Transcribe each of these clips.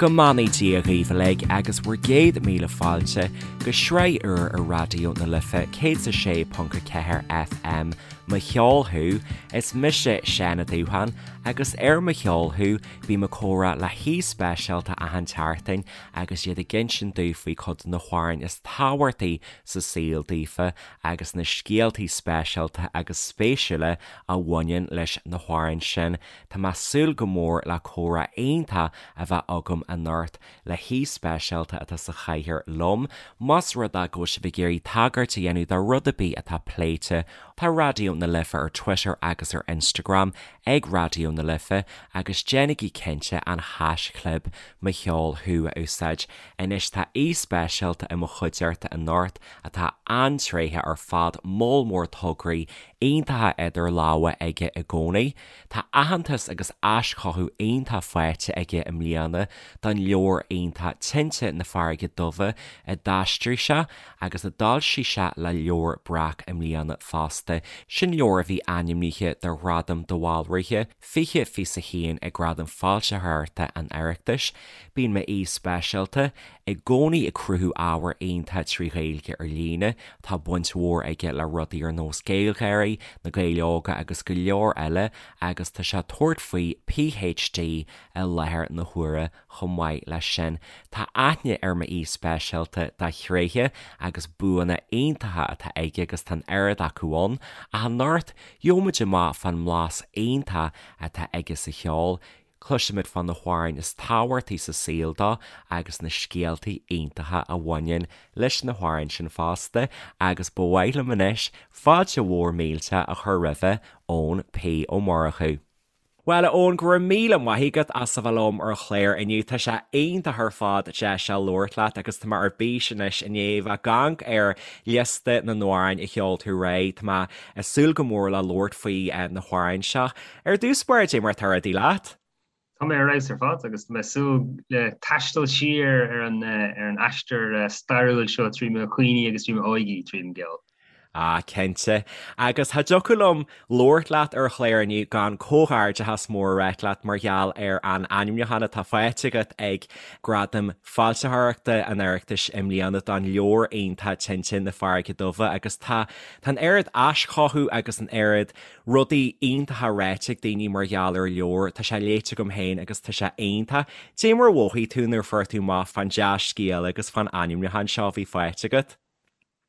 Go mbeannaí Dia dhaoibh uilig agus bhur gcéad míle fáilte go sraith úr ar Raidió na Life 106.4 FM, Mo Cheol Thú. Is mise Seán Ó Dúcháin agus ar Mo Cheol Thú bím ag comhrá le haoi speisialta achan tseachtain agus iad ag insint domh faoi chuid de na hamhráin is tábhachtaí sa saol daofa agus na scéaltaí speisialta agus spéisiúla a bhaineann leis na hamhráin sin. Tá mé ag súil go mór le comhrá iontach a bheith agam anocht le haoi speisialta atá sa chathaoir liom. Más rud é go bhfuil sibh ag iarraidh tagairt a dhéanamh do rud ar bith atá pléite, tá Raidió na Life ar Twitter agus ar Instagram ag Raidió na Life agus déanaigí cinnte an haischlib Mo Cheol Thú a úsáid. Anois tá aoi speisialta i mo chuideachta anocht atá an-tréitheach ar fad, moll mór tograí iontacha idir lámha aige i gcónaí. Tá aitheantas agus aischothú iontach faighte aige i mbliana don leabhar iontach Tinte na Farraige Duibhe a d'aistrigh sé agus a d'fhoilsigh sé le Leabhar Breac i mbliana fosta. Sin leabhar a bhí ainmnithe do Ghradam de Bhaldraithe 2021 ag Gradaim Foilsitheoireachta an Oireachtais. Bíonn m'aoi speisialta i gcónaí ag cruthú ábhar iontach trí Ghaeilge ar líne. Tá baint mhór aige le rudaí ar nós GaelGáirí, Na Gaeil Óga agus go leor eile agus tá sé ag tabhairt faoi PhD i láthair na huaire chomh maith leis sin. Tá aithne ar m'aoi speisialta dá thréithe agus buanna iontacha atá aige agus tá an oiread acu ann. Ach anocht, gheobhaimid amach fán mblas iontach atá aige sa cheol, Cloisfimid fá na hamhráin is tábhachtaí sa saol dó agus na scéaltaí iontacha a bhaineann leis na hamhráin sin fosta agus ba mhaith liom anois fáilte mhór millteach a chur roimhe, Eoin P. Ó Murchú. Bhuel, a Eoin, go raibh míle maith agat as a bheith liom ar an chlár inniu. Tá sé iontach ar fad deis a labhairt leat agus tá mé ar bís anois i ndiaidh bheith ag amharc ar liosta na n-amhrán a sheol tú aréir. Tá mé ag súil go mór le labhairt faoi na hamhráin seo. Ar dtús báire, cad é mar atá rudaí leat? Tá mé ar fheabhas ar fad agus tá mé ag súil le taisteal siar ar an ar an aistear stairiúil seo trí mo chuimhní agus trí m'óige tríd an gceol. Ah, cinnte. Agus cha dtiocfadh liom labhairt leat ar an chlár inniu gan comhghairdeachas mór a ráit leat mar gheall ar an ainmniúchán atá faighte agat ag Gradaim Foilsitheoireachta an Oireachtais i mbliana don leabhar iontach Tinte na Farraige Duibhe agus tá tá an oiread aischothú agus an oiread Rudaí iontacha ráite ag daoine mar gheall ar an leabhar, tá sé léite agam féin agus tá sé iontach. Cad é mar a mhothaigh tú nuair a fuair tú amach fán dea-scéala agus fán ainmniúchán seo a bhí faighte agat?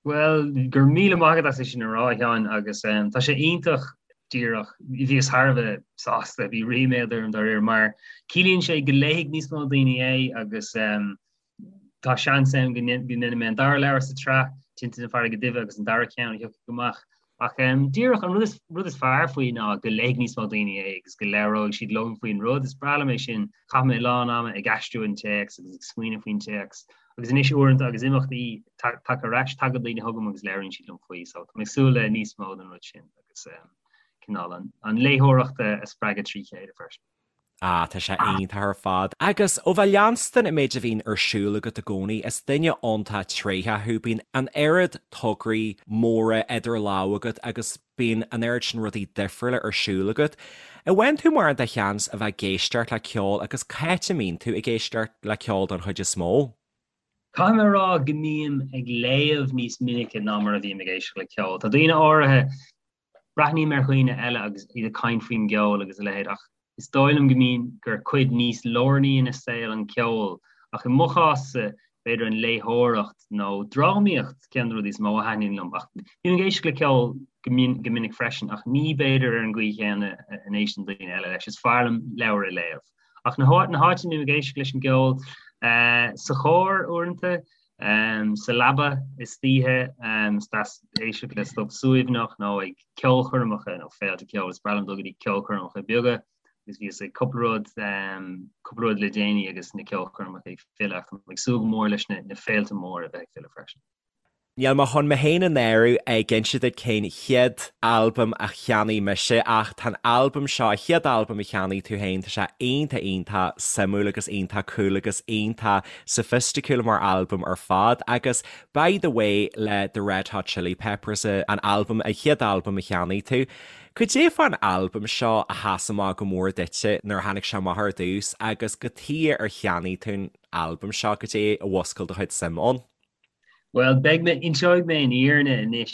Bhuel, go raibh míle maith agat as é sin a rá, a Sheáin, agus tá sé iontach díreach, bhíos thar a bheith sásta, bhí ríméad orm dáiríre, mar ciallaíonn sé go léifidh níos mó daoine é agus tá seans ann go ndéanfaidh mé an dara leabhar sa tsraith, Tinte na Farraige Duibhe agus an dara ceann a thiocfaidh amach. Ach díreach an rud is fearr faoi ná go léifidh níos mó daoine é agus go labhróidh siad liom faoin rud. Is breá liom é sin. Chaith mé a lán ama ag aistriú an téacs agus ag smaoineamh faoin téacs. Agus anois uaireanta agus imeachtaí tagtha ar ais, tagann daoine chugam agus labhraíonn siad liom faoi. So tá mé ag súil le níos mó den rud sin agus cineál an léitheoireacht a spreagadh trí chéile freisin. Ah, tá sé iontach ar fad. Agus ó bheith leanstan an méid a bhíonn ar siúl agat i gcónaí, is duine iontach tréitheach thú, bíonn an oiread tograí móra idir lámha agat agus bíonn an oiread sin rudaí difriúla ar siúl agat. An bhfaigheann tú mórán de sheans a bheith ag éisteacht le ceol agus cá háit a mbíonn tú ag éisteacht le ceol don chuid is mó? Caithfidh mé a rá go mbím ag léamh níos minice ná mar a bhím ag éisteacht le ceol. Tá daoine áirithe Breathnaím ar dhaoine eile agus iad ag caint faoin gceol agus a leithéid ach is dóigh liom go mbíonn gur cuid níos lárnaí ina saol an ceol ach i mo chás-sa b'fhéidir an léitheoireacht nó drámaíocht ceann de na rudaí is mó a thaitníonn liom ach bím ag éisteacht le ceol go go minic freisin ach ní b'fhéidir ar an gcaoi chéanna a n-éisteann daoine eile leis. Is fearr liom leabhar a léamh. Ach na na háiteanna a mbím ag éisteacht leis an gceol sa charr uaireanta, Sa leaba istoíche, is deas éisteacht le stuif suaimhneach nó ag ceolchoirmeacha nó féilte ceoil. Is breá liom dul go dtí ceolchoirmeacha beaga agus bhíos ag cúpla rud, cúpla rud le déanaí agus na ceolchoirmeacha ag filleadh ach tá mé ag súil go mór leis na féilte móra a bheith ag filleadh freisin. Níl mé chun mé féin a náiriú ag inse duit cén chéad albam a cheannaigh mise ach tá an albam seo, an chéad albam a cheannaigh tú féin, tá sé iontach iontach suimiúil agus iontach cool agus iontach soifisticiúil mar albam ar fad agus By the Way le The Red Hot Chili Peppers an albam, an chéad albam a cheannaigh tú. Cad é fán albam seo a sheas amach go mór duitse nuair a tháinig sé amach ar dtús agus cad chuige ar cheannaigh tú an albam seo, cad é a mhúscail do chuid suim ann? Bhuel, beidh mé, inseoidh mé an fhírinne anois.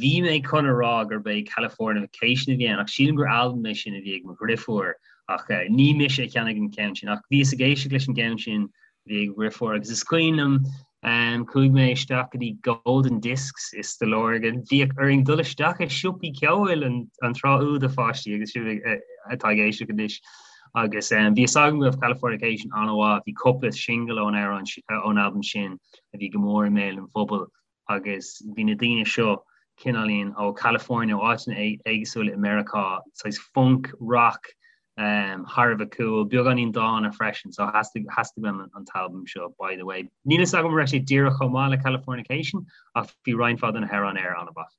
Bhí mé chun a rá gurb é Californication a bhí ann, ach sílim gur albam é sin a bhí ag mo dhriofúr, ach ní mise a cheannaigh an ceann sin. Ach bhíos ag éisteacht leis an gceann sin a bhí ag mo dhriofúr, agus is cuimhin liom, chuaigh mé isteach go dtí Golden Discs i Stigh Lorgan. Bhíodh orainn dul isteach i siopaí ceoil an tráth úd, a pháistí, agus sibh atá ag éisteacht anois. Agus bhí fhios agam go raibh Californication an-mhaith, bhí cúpla singil ón amhrán, ón albam sin a bhí go mór i mbéal an phobail agus bhí na daoine seo cineáilín ó California, ó áiteanna éagsúla i Meiriceá, saghas funk, rock, thar a bheith cool, beagáinín dána freisin, so theastaigh, theastaigh uaim an t-albam seo, by the way. Níl fhios agam an raibh sé díreach chomh maith le Californication ach bhí roinnt mhaith de na hamhráin air an-mhaith.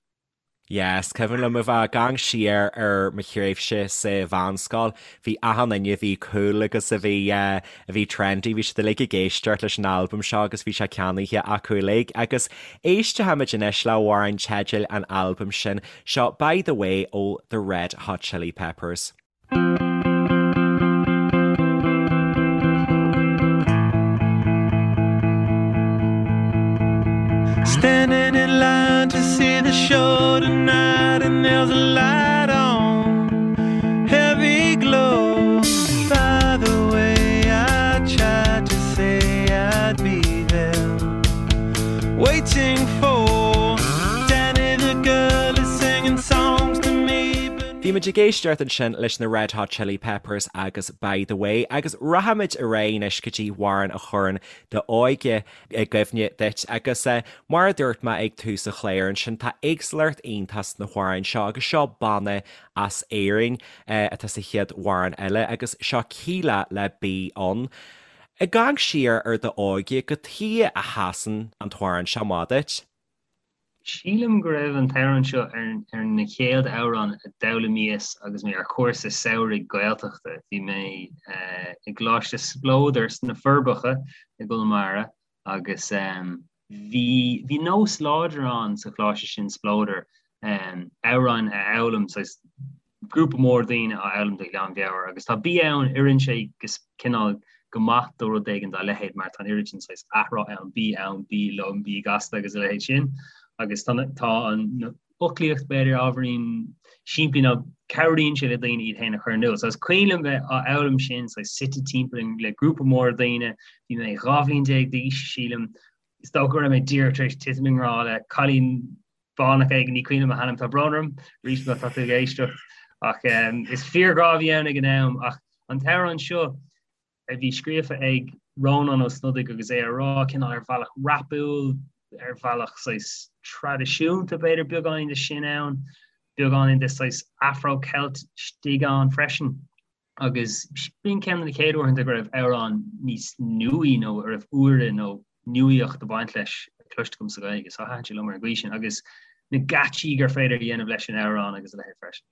Yeah, is cuimhin liom a bheith ag amharc siar ar mo thréimhse sa mheánscoil, bhí achan duine a bhí cool agus a bhí a bhí trendy, bhí siad uilig ag éisteacht leis an albam seo agus bhí sé ceannaithe acu uilig. Agus éistfimid anois le hamhrán teidil an albaim sin, seo By the Way ó The Red Hot Chili Peppers. Standing in line to see the show tonight and there's a light on heavy glow By the way I tried to say I'd be there Waiting for Danny the girl is singing songs to me but Bhí muid ag éisteacht ansin leis na Red Hot Chili Peppers agus By the Way agus rachaimid ar aghaidh anois go dtí amhrán a chuireann d'óige i gcuimhne duit agus mar a dúirt mé ag tús an chláir ansin tá éagsúlacht iontach sna hamhráin seo agus seo banna as Éirinn atá sa chéad amhrán eile agus seo Kíla le Bí Ann. Ag amharc siar ar d'óige, cad chuige a sheasann an t-amhrán seo amach duit? Sílim go raibh an t-amhrán seo ar na chéad amhráin a d'fhoghlaimíos agus mé ar chúrsa samhraidh Gaeltachta. Bhí mé i gColáiste Spleodair sna Forbacha i gConamara agus bhí bhí nós láidir ann sa choláiste sin, Spleodar, amhráin a fhoghlaim, saghas grúpa mór daoine á fhoghlaim de ghlanmheabhair agus tá Bí Ann, oireann sé go cineál go maith do rud éigin dá leithéid mar tá an oiread sin saghas athrá ann, bí ann, bí liom, bí gasta agus a leithéid sin agus tá tá an fhoclaíocht b'fhéidir ábhairín simplí nó cabhraíonn sé le daoine iad féin a chur in iúl. So is cuimhin liom bheith á fhoghlaim sin saghas suite timpeall le grúpa mór daoine, bhí mé 12 bhliain d'aois sílim, is dócha go raibh mé díreach tar éis titim i ngrá le cailín fánach éigin, ní cuimhin liom a hainm, tá brón orm, arís má tá tú ag éisteacht, ach is fíorghrá a bhí ann ag an am, ach an t-amhrán seo a bhí scríofa ag Rónán Ó Snodaigh agus é á rá cineál ar bhealach rapúil, ar bhealach saghas traidisiúnta b'fhéidir, beagáinín de sin ann, beagáinín de saghas Afro-Celt istigh ann freisin. Agus b'in ceann de na chéad uaireanta go raibh amhrán níos nuaí nó a raibh úire nó nuaíocht ag baint leis cloiste agam sa Ghaeilge. So thaitin sé liom ar an gcaoi sin agus na geáitsí gur féidir a dhéanamh leis an amhrán agus a leithéid freisin.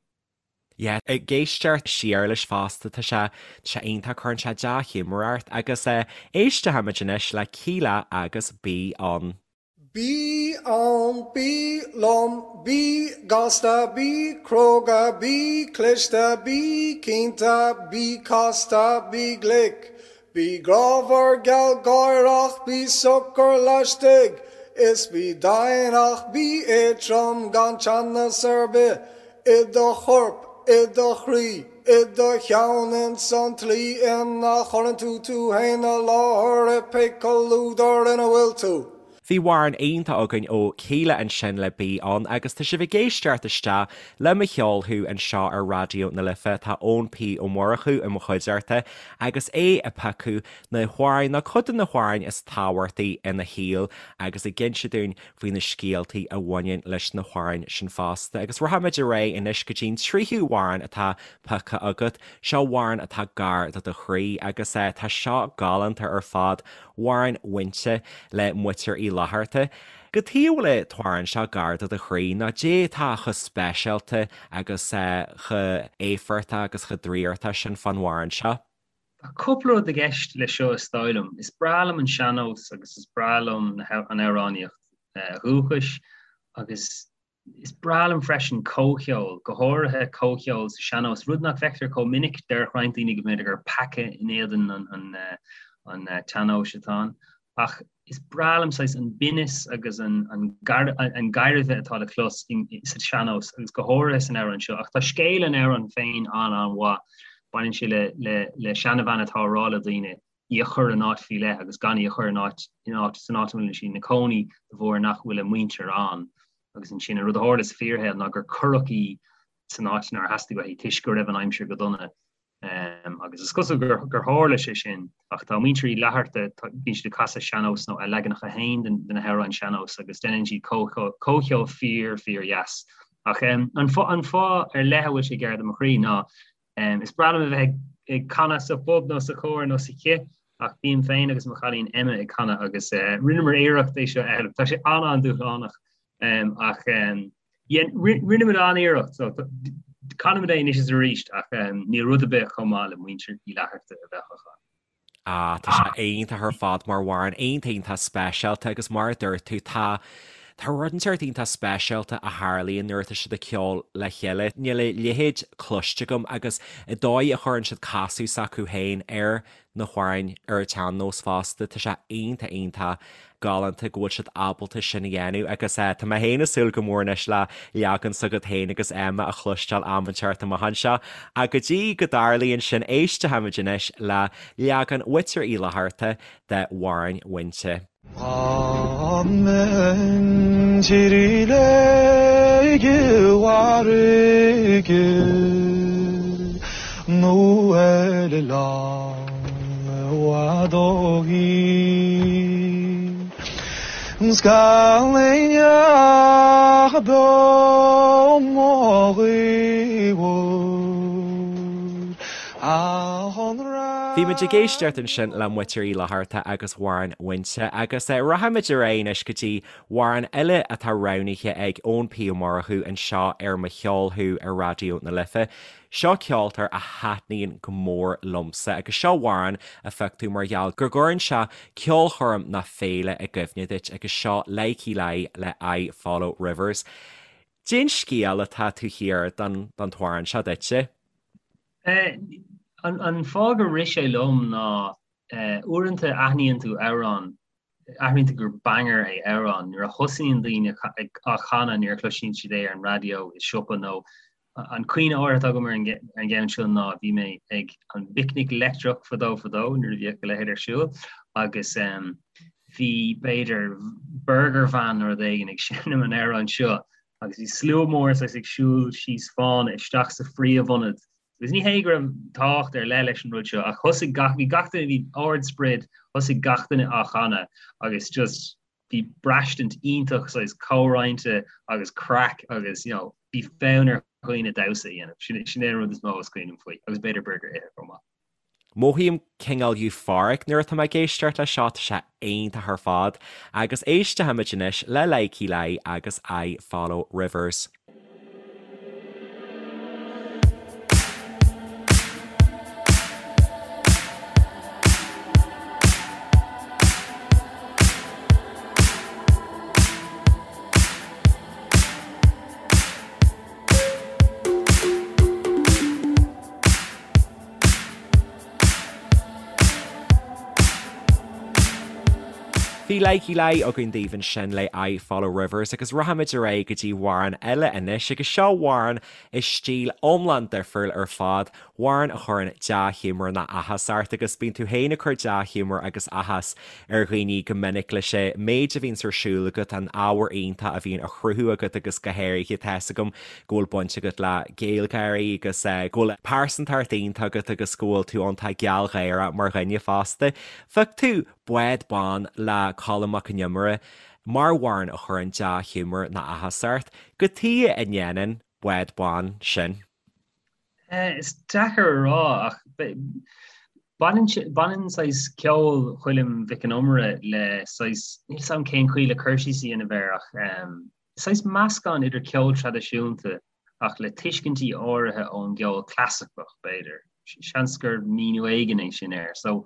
Yeah, ag éisteacht siar leis fosta, tá sé, tá sé iontach, cuireann sé dea-ghiúmar ort agus eh, éistfimid anois le Kíla agus Bí Ann. Bí ann, bí liom, bí gasta, bí cróga, bí cliste, bí cinnte, bí casta, bí glic, bí grámhar gealgháireach, bí socair laistigh is bí domhain ach bí éadtrom gan teannas ar bith i do chorp, i do chroí, i do cheann ins an tslí ina chuireann tú tú fhéin i láthair i pé comhluadar ina bhfuil tú. Bhí amhrán iontach againn ó Kíla ansin le Bí Ann agus tá sibh ag éisteacht isteach le Mo Cheol Thú anseo ar Raidió na Life. Tá Eoin P Ó Murchú i mo chuideachta agus é ag piocadh na hamhráin nó cuid de na hamhráin is tábhachtaí ina shaol agus ag inse dúinn faoi na scéaltaí a bhaineann leis na hamhráin sin fosta. Agus rachaimid ar aghaidh anois go dtí'n tríú hamhrán atá pioctha agat. Seo amhrán atá gar do do chroí agus tá seo galánta ar fad, Amhrán Mhuinte le Muintir Uí. Fhlatharta. Cad chuige a bhfuil an t-amhrán seo gar do do chroí nó caidé atá chomh speisialta agus chomh éifeachtach agus chomh draíochtach sin fán amhrán seo? Tá cúpla rud i gceist leis seo is dóigh liom. Is breá liom an sean-nós agus is breá liom an amhránaíocht dhúchais agus is breá liom freisin comhcheol, go háirithe comhcheol sa sean-nós, rud nach bhfeictear chomh minic. Déarfadh roinnt daoine go mb'fhéidir gur peaca in éadan an tsean-nóis atá ann. Ach is breá liom saghas an binneas agus an gairbhe atá le clos sa sean-nós agus go háirithe san amhrán seo. Ach tá scéal an amhráin féin an-an-mhaith. Baineann sé le seanabhean atá ag rá le daoine í a chur in áit faoi leith agus gan í a chur in áit san áit a bhfuil sí ina cónaí de bharr nach bhfuil a muintir ann. Agus ansin an rud a tharla sa fíorshaol ná gur cuireadh í san áit nár theastaigh uaithi toisc go raibh an aimsir go dona. Agus is cosúil gur tharla sé sin, ach tá muintir Uí Fhlatharta, bíonn siad ag casadh sean-nós nó a leaganacha féin de na hamhráin sean-nós agus déanann siad comhcheol fíor, fíor dheas. Ach an fáth ar leith a bhfuil sé gar do mo chroí ná is breá liom a bheith ag canadh sa phub nó sa chór nó sa chith ach bím féin agus mo chailín Emma ag canadh agus rinneamar iarracht é seo a fhoghlaim. Tá sé an-an-dúshlánach ach Rinne muid an-iarracht, so canaimid é anois is arís ach níl rud ar bith chomh maith le muintir Uí Fhlatharta a bheith á chanadh. Ah, tá sé iontach ar fad mar amhrán, iontach iontach speisialta agus mar a dúirt tú, tá tá rud inteacht iontach speisialta a tharlaíonn nuair atá siad ag ceol le chéile. Níl a leithéid cloiste agam agus an dóigh a chuireann siad casadh s'acu féin ar na hamhráin ar an tsean-nós fosta. Tá sé iontach iontach galánta go bhfuil siad ábalta sin a dhéanamh agus tá mé féin ag súil go mór anois le leagan s'agat féin agus Emma a chloisteáil am inteacht amach anseo. Ach go dtí go dtarlaíonn sin, éistfimid anois le leagan Mhuintir Uí Fhlatharta de Amhrán Mhuinte. Dá mbeinn tír léige mhairge nó ar oileán i bhfad ó thír, 's gan éinne beo mo ghaobhar. Bhí muid ag éisteacht ansin le Muintir Uí Fhlatharta agus Amhrán Mhuinte agus rachaimid ar aghaidh anois go dtí amhrán eile atá roghnaithe ag Eoin P Ó Murchú anseo ar Mo Cheol Thú ar Raidió na Life. Seo ceoltóir a thaitníonn go mór liomsa agus seo amhrán a phioc tú mar gheall go gcuireann sé ceolchoirm nó féile i gcuimhne duit agus seo Lykke Li le I Follow Rivers. Cén scéal atá taobh thiar den t-amhrán seo duitse? An fáth gur rith sé liom ná uaireanta aithníonn tú amhrán, aithníonn tú gur banger é amhrán nuair a thosaíonn daoine á chanadh nuair a chloiseann siad é ar an raidió i siopa nó an cuimhne áirithe atá agam ar an gceann seo ná bhí mé ag an bPicnic Leictreach fadó fadó nuair a bhíodh a leithéid ar siúl agus bhí b'fhéidir burger van nó rud éigin ag seinm an amhráin seo agus bhí slua mór saghas ag siúl síos fána isteach sa phríomhionad agus ní hé go raibh tábhacht ar leith leis an rud seo ach thosaigh gach bhí gach duine bhí ard-sprid thosaigh gach duine á chanadh agus just bhí braistint iontach saghas comhroinnte agus craic agus you know bhí fonn ar dhaoine damhsa a dhéanamh. Sin sin é an rud is mó is cuimhin liom faoi agus b'fhéidir burger a ithe chomh maith. Mothaím cineál euphoric nuair atá mé ag éisteacht leis seo, tá sé iontach ar fad. Agus éistfimid anois le Lykke Li agus I Follow Rivers. Bhí Lykke Li againn daoibh ansin le I Follow Rivers agus rachaimid ar aghaidh go dtí amhrán eile anois agus seo amhrán i stíl iomlán difriúil ar fad, amhrán a chuireann dea-ghiúmar nó áthas ort agus bíonn tú féin ag cur dea-ghiúmar agus áthas ar dhaoine go minic leis an méid a bhíonns ar siúl agat, an ábhar iontach a bhíonn á chruthú agat agus go háirithe tá's agam go bhfuil baint agat le GaelGÁIRÍ agus go bhfuil pearsantacht iontach agat agus go bhfuil tú iontach gealgháireach mar dhuine fosta. Phioc tú Bád Bán le Colm Mac Con Iomaire mar amhrán a chuireann dea-ghiúmar nó áthas ort. Cad chuige a ndéanann Bád Bán sin? Is deacair a rá ach. Baineann baineann saghas ceol Choilm Mhic an Iomaire le saghas, níl 's a'm cén chaoi le cur síos a dhéanamh air ach saghas meascán idir ceol traidisiúnta ach le tuiscintí áirithe ón gceol clasaiceach, b'fhéidir. Seans gur míniú éigin é sin air. So,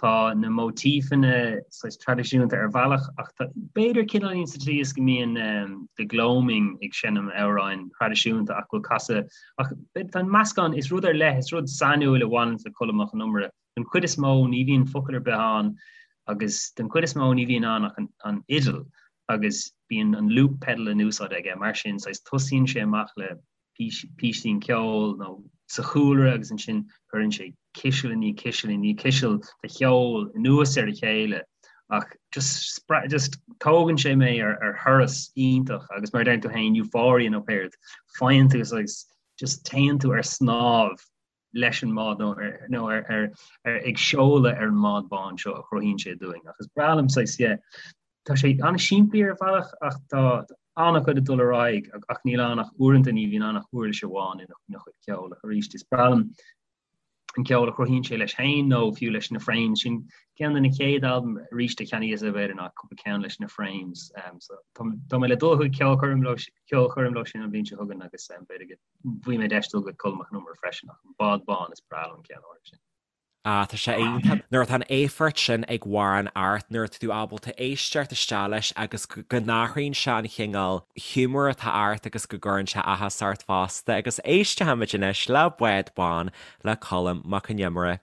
tá na móitífeanna saghas traidisiúnta ar bhealach ach tá, b'fhéidir cineáilín sa tslí is go mbíonn The Gloaming ag seinm amhráin thraidisiúnta ach go bhfuil casadh ach tá an meascán, is rud ar leith, is rud sainiúil a bhaineann le Colm Mac Con Iomaire. Den chuid is mó ní bhíonn focal ar bith ann agus den chuid is mó ní bhíonn ann ach an fhidil agus bíonn an loop pedal in úsáid aige, mar sin saghas tosaíonn sé amach le písín ceoil nó sa chúlra agus ansin cuireann sé ciseal i ndiaidh ciseal i ndiaidh ciseal de cheol anuas ar a chéile ach just just tógann sé mé ar ar thuras iontach agus mar a deir tú féin euphoria nó céard faigheann tú saghas just téann tú ar snámh leis an mbád nó ar nó ar ar ar ag seoladh ar an mbád bán seo a chruthaíonn sé dúinn ach is breá liom saghas yeah tá sé an-simplí ar bhealach ach tá an-chuid ag dul ar aghaidh ach níl ann ach uaireanta ní bhíonn ann ach uirlis amháin ina chuid ceoil ach arís is breá liom an ceol a chruthaíonn sé leis féin nó fiú leis na Frames sin ceann de na chéad albaim arís a cheannaíos b'fhéidir ná cúpla ceann leis na Frames um, so tá mé le dul chuig ceolchoirm leo ceolchoirm leo sin an bhliain seo chugainn agus um, b'fhéidir go bhfaighidh mé deis dul go Colm Mac Con Iomaire freisin ach an Bád Bán is breá liom an ceann áirithe sin. Ah, tá sé iontach. Nuair atá an éifeacht sin ag amhrán ort, nuair atá tú ábalta éisteacht isteach leis agus go n-athraíonn sé an chineál giúmar atá ort agus go gcuireann sé áthas ort fosta. Agus éistfimid anois le Bád Bán le Colm Mac Con Iomaire.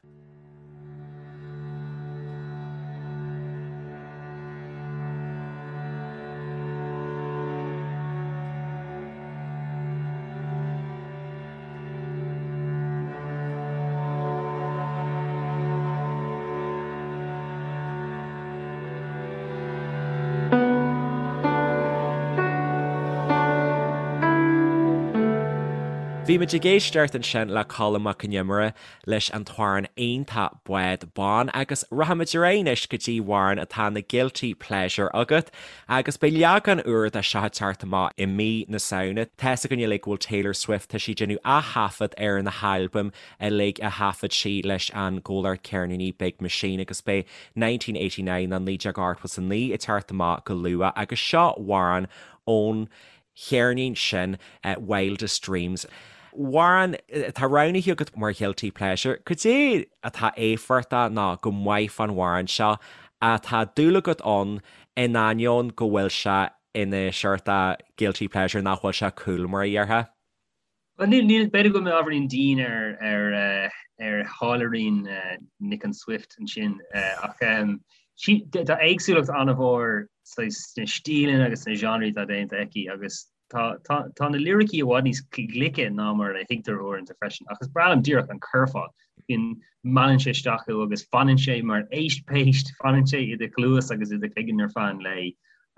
Bhí muid ag éisteacht ansin le Colm Mac Con Iomaire leis an t-amhrán iontach Bád Bán agus rachaimid ar aghaidh anois go dtí amhrán atá ina guilty pleasure agat agus beidh leagan úr de seo ag teacht amach i mí na Samhna. Tá's againn uilig go bhfuil Taylor Swift, tá sí ag déanamh ath-thaifead ar na halbaim uilig a thaifead sí leis an gcomhlacht ceirníní Big Machine agus beidh 1989 nó 1989 ag teacht amach go luath agus seo amhrán ón cheirnín sin Wildest Dreams. Amhrán atá roghnaithe agat mar ghuilty pleasure, cad é atá éifeachtach nó go maith fán amhrán seo atá dúil agat ann in ainneoin go bhfuil sé ina seort guilty pleasure nach bhfuil sé cool mar a déarfá? Bhuel níl, níl, b'fhéidir go bhfuil mé ábhairín dian ar, ar, ar tháilliúirín Nic an Swift ansin ach tá éagsúlacht an-mhór sna stíleanna agus sna genres atá déanta aici agus tá, tá, tá na liricí i bhfad níos glice ná mar a thuigtear uaireanta freisin ach is breá liom díreach an curfá. Bíonn, meallann sé isteach thú agus fanann sé mar éist péist, fanann sé i do chluas agus i do chloigeann ar feadh an lae.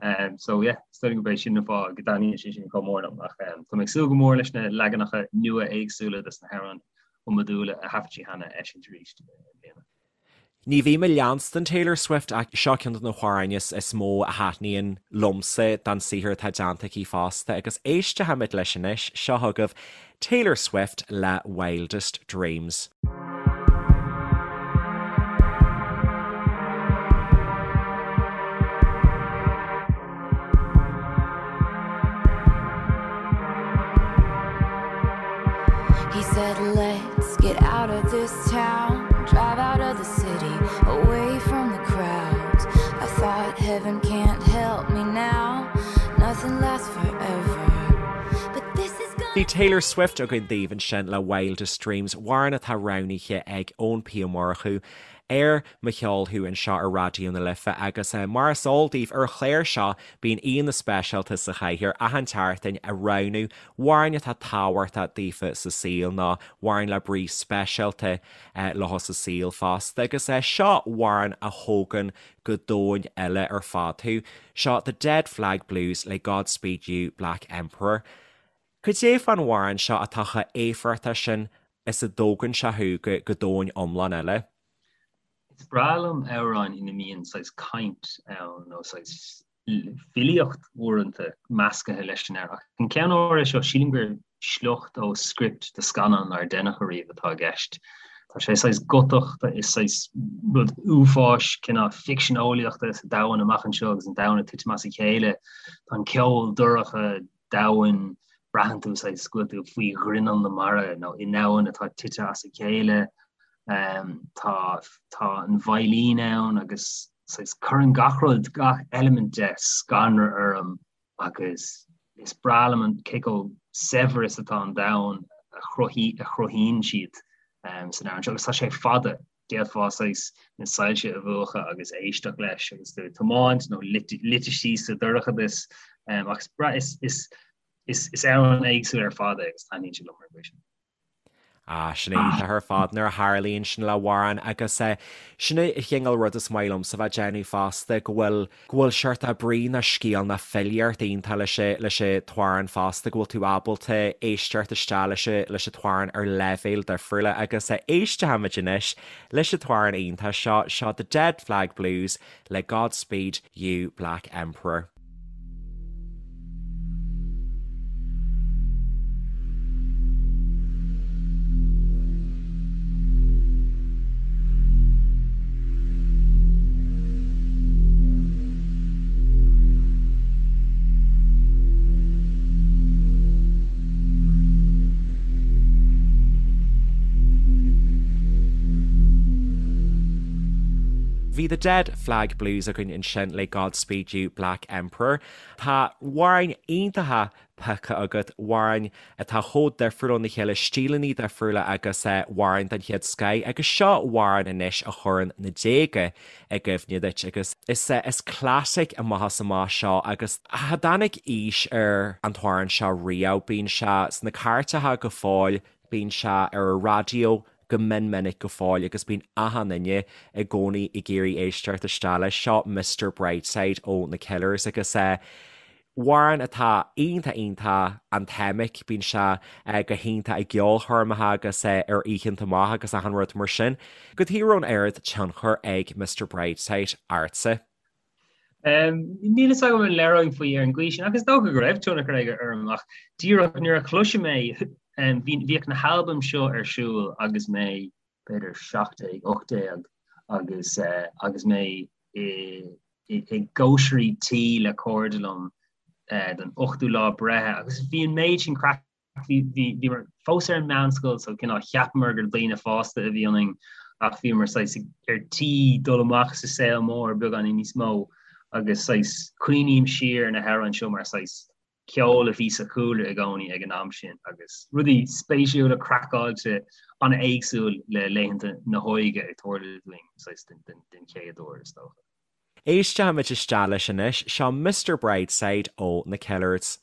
Um, so yeah, is dóigh gurb é sin an fáth go dtaitníonn sé sin chomh mór liom ach um, tá mé ag súil go mór leis na leaganacha nua éagsúla des na hamhráin iomadúla a thaifead sí cheana a eisiúint arís i mbliana. Ní bhím ag leanstan Taylor Swift ach seo ceann de na hamhráin is is mó a thaitníonn liomsa den saothar atá déanta aici fosta agus éistfimid leis anois, seo chugaibh Taylor Swift le Wildest Dreams. He said let's get out of this town Drive out of the city Away from the crowds I thought heaven can't help me now Nothing lasts forever But this is Bhí Taylor Swift againn daoibh ansin le Wildest Dreams, amhrán atá roghnaithe ag Eoin P Ó Murchú ar Mo Cheol Thú anseo ar Raidió na Life agus mar is eol daoibh ar an chlár seo bíonn aíonna speisialta sa chathaoir achan tseachtain ag roghnú amhráin atá tábhachtach daofa sa saol nó amhráin le brí speisialta leo sa saol fosta agus seo amhrán a thógann go domhan eile ar fad thú. Seo The Dead Flag Blues le Godspeed You Black Emperor. Cad é fán amhrán seo atá chomh éifeachtach sin is a dtógann sé thú go go domhan iomlán eile? Is breá liom amhráin ina mbíonn saghas caint ann nó saghas filíocht uaireanta meascaithe leis an amhrán. Ach an ceann áirithe seo, sílim gur sliocht ó script do scannán nár deineadh ariamh atá i gceist. Tá sé saghas gotach, is saghas rud uafáis, cineál ficsean eolaíochta sa domhan amach anseo agus an domhan ag titim as a chéile. Tá an ceol dorcha, domhain, braitheann tú saghas go bhfuil tú faoi ghrinneall na mara nó i ndomhan atá tite as a chéile. Tá tá an veidhlín ann agus saghas cuireann gach rud, gach eilimint de scanradh orm agus is breá liom an cé chomh saibhir is atá an domhan a chruthaíonn siad san amhrán seo agus tá sé fada, d'fhéadfá saghas na soilse a mhúchadh agus éisteacht leis agus tú ag tiomáint nó luite síos sa dorchadas ach is is is is amhrán éagsúil ar fad é agus taitníonn sé liom ar an gcaoi sin. Ah, sin iontach ar fad nuair a tharlaíonn sin le hamhrán agus sin an cineál rud is maith liomsa bheith ag déanamh fosta, go bhfuil, go bhfuil seort brí nó scéal nó filíocht iontach leis an, leis an t-amhrán fosta, go bhfuil tú ábalta éisteacht isteach leis an, leis an t-amhrán ar leibhéil difriúla agus éistfimid anois leis an t-amhrán iontach seo, seo The Dead Flag Blues le Godspeed You Black Emperor. Bhí The Dead Flag Blues againn ansin le Godspeed You Black Emperor. Tá amhráin iontacha pioctha agat, amhráin atá chomh difriúil óna chéile, stíleanna difriúla agus amhráin den chéad scoith agus seo amhrán anois a chuireann na déaga i gcuimhne duit agus is is classic amach is amach seo agus cha dtáinig aois ar an t-amhrán seo riamh, bíonn sé sna cairteacha go fóill, bíonn sé ar an raidió go mion minic go fóill agus bíonn achan duine i gcónaí ag iarraidh éisteacht isteach leis. Seo Mister Brightside ó na Killers agus amhrán atá iontach iontach anthemic, bíonn sé go hiontach i gceolchoirmeacha agus ar oícheanta amach agus achan rud mar sin. Cad chuige a raibh an oiread tionchar ag Mister Brightside ortsa? Níl fhios agam an léireoinn faoi ar an gcaoi sin, ach is dócha go raibh tionchar aige orm, ach díreach nuair a chloisim é, bhíodh na halbaim seo ar siúl agus mé b'fhéidir 17, 18 agus agus mé i gcóisirí tí le cairde liom don ochtú lá breithe agus bhí an méid sin craic Bhíomar fós ar an meánscoil so cineál cheapamar gur daoine fásta a bhí ionainn ach bhíomar saghas ar tí dul amach sa saol mór beagáinín níos mó agus saghas cuimhním siar ar na hamhráin seo mar saghas ceol a bhí sa chúlra i gcónaí ag an am sin agus rudaí spéisiúla craiceáilte an-éagsúil le laethanta na hóige ag tarlú dúinn saghas den chéad uair is dócha. Éistfimid isteach leis anois, seo Mister Brightside ó na Killers.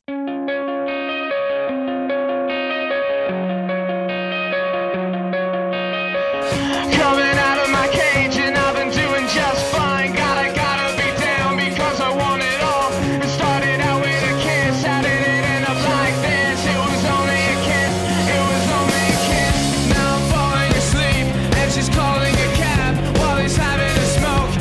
Coming out of my cage and I've been doing just fine Gotta, gotta be down because I want it all It started out with a kiss, how did it end up like this? It was only a kiss, it was only a kiss Now I'm falling asleep and she's calling a cab While he's having a smoke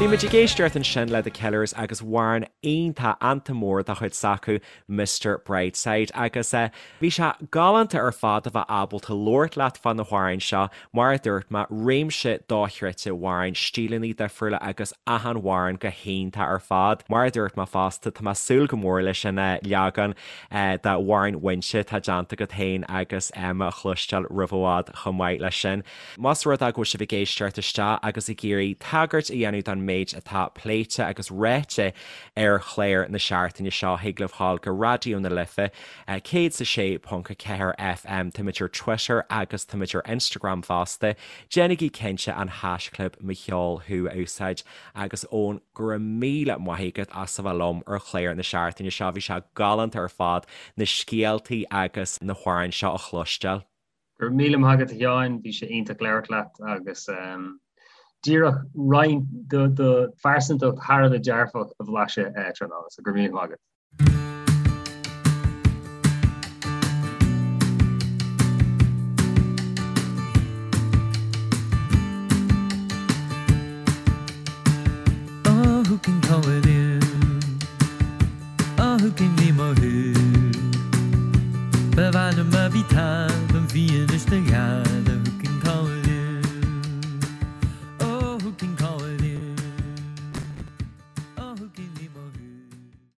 Bhí muid ag éisteacht ansin le The Killers agus amhrán iontach anthem mór de chuid s'acu Mister Brightside agus bhí sé galánta ar fad a bheith ábalta labhairt leat fá na hamhráin seo, mar a dúirt mé, réimse dochreidte amhrán, stíleanna difriúla agus achan amhrán go hiontach ar fad. Mar a dúirt mé fosta, tá mé ag súil go mór leis an leagan d'amhrán Mhuínse atá déanta agat féin agus Emma a chloisteáil roimh i bhfad chomh maith leis sin. Más rud é go bhfuil sibh ag éisteacht isteach agus ag iarraidh tagairt a dhéanamh don méid atá pléite agus ráite ar chlár na seachtaine seo, thig libh ghabháil go Raidió na Life, 106.4 FM, táimid ar Twitter agus táimid ar Instagram fosta. Déanaigí cinnte an haischlib Mo Cheol Thú a úsáid agus Eoin, go raibh míle maith agat as a bheith liom ar chlár na seachtaine seo, bhí sé galánta ar fad na scéaltaí agus na hamhráin seo a chloisteáil. Go raibh míle maith agat a Sheáin, bhí sé iontach labhairt leat agus díreach roinnt de do phearsantacht thar a bheith dearfach a bhlaiseadh tráthnóna, so go raibh míle maith agat. Oh who can call it in? Oh who can name a who? Ba mhaith liom má bhí tada an fianaise do ghead.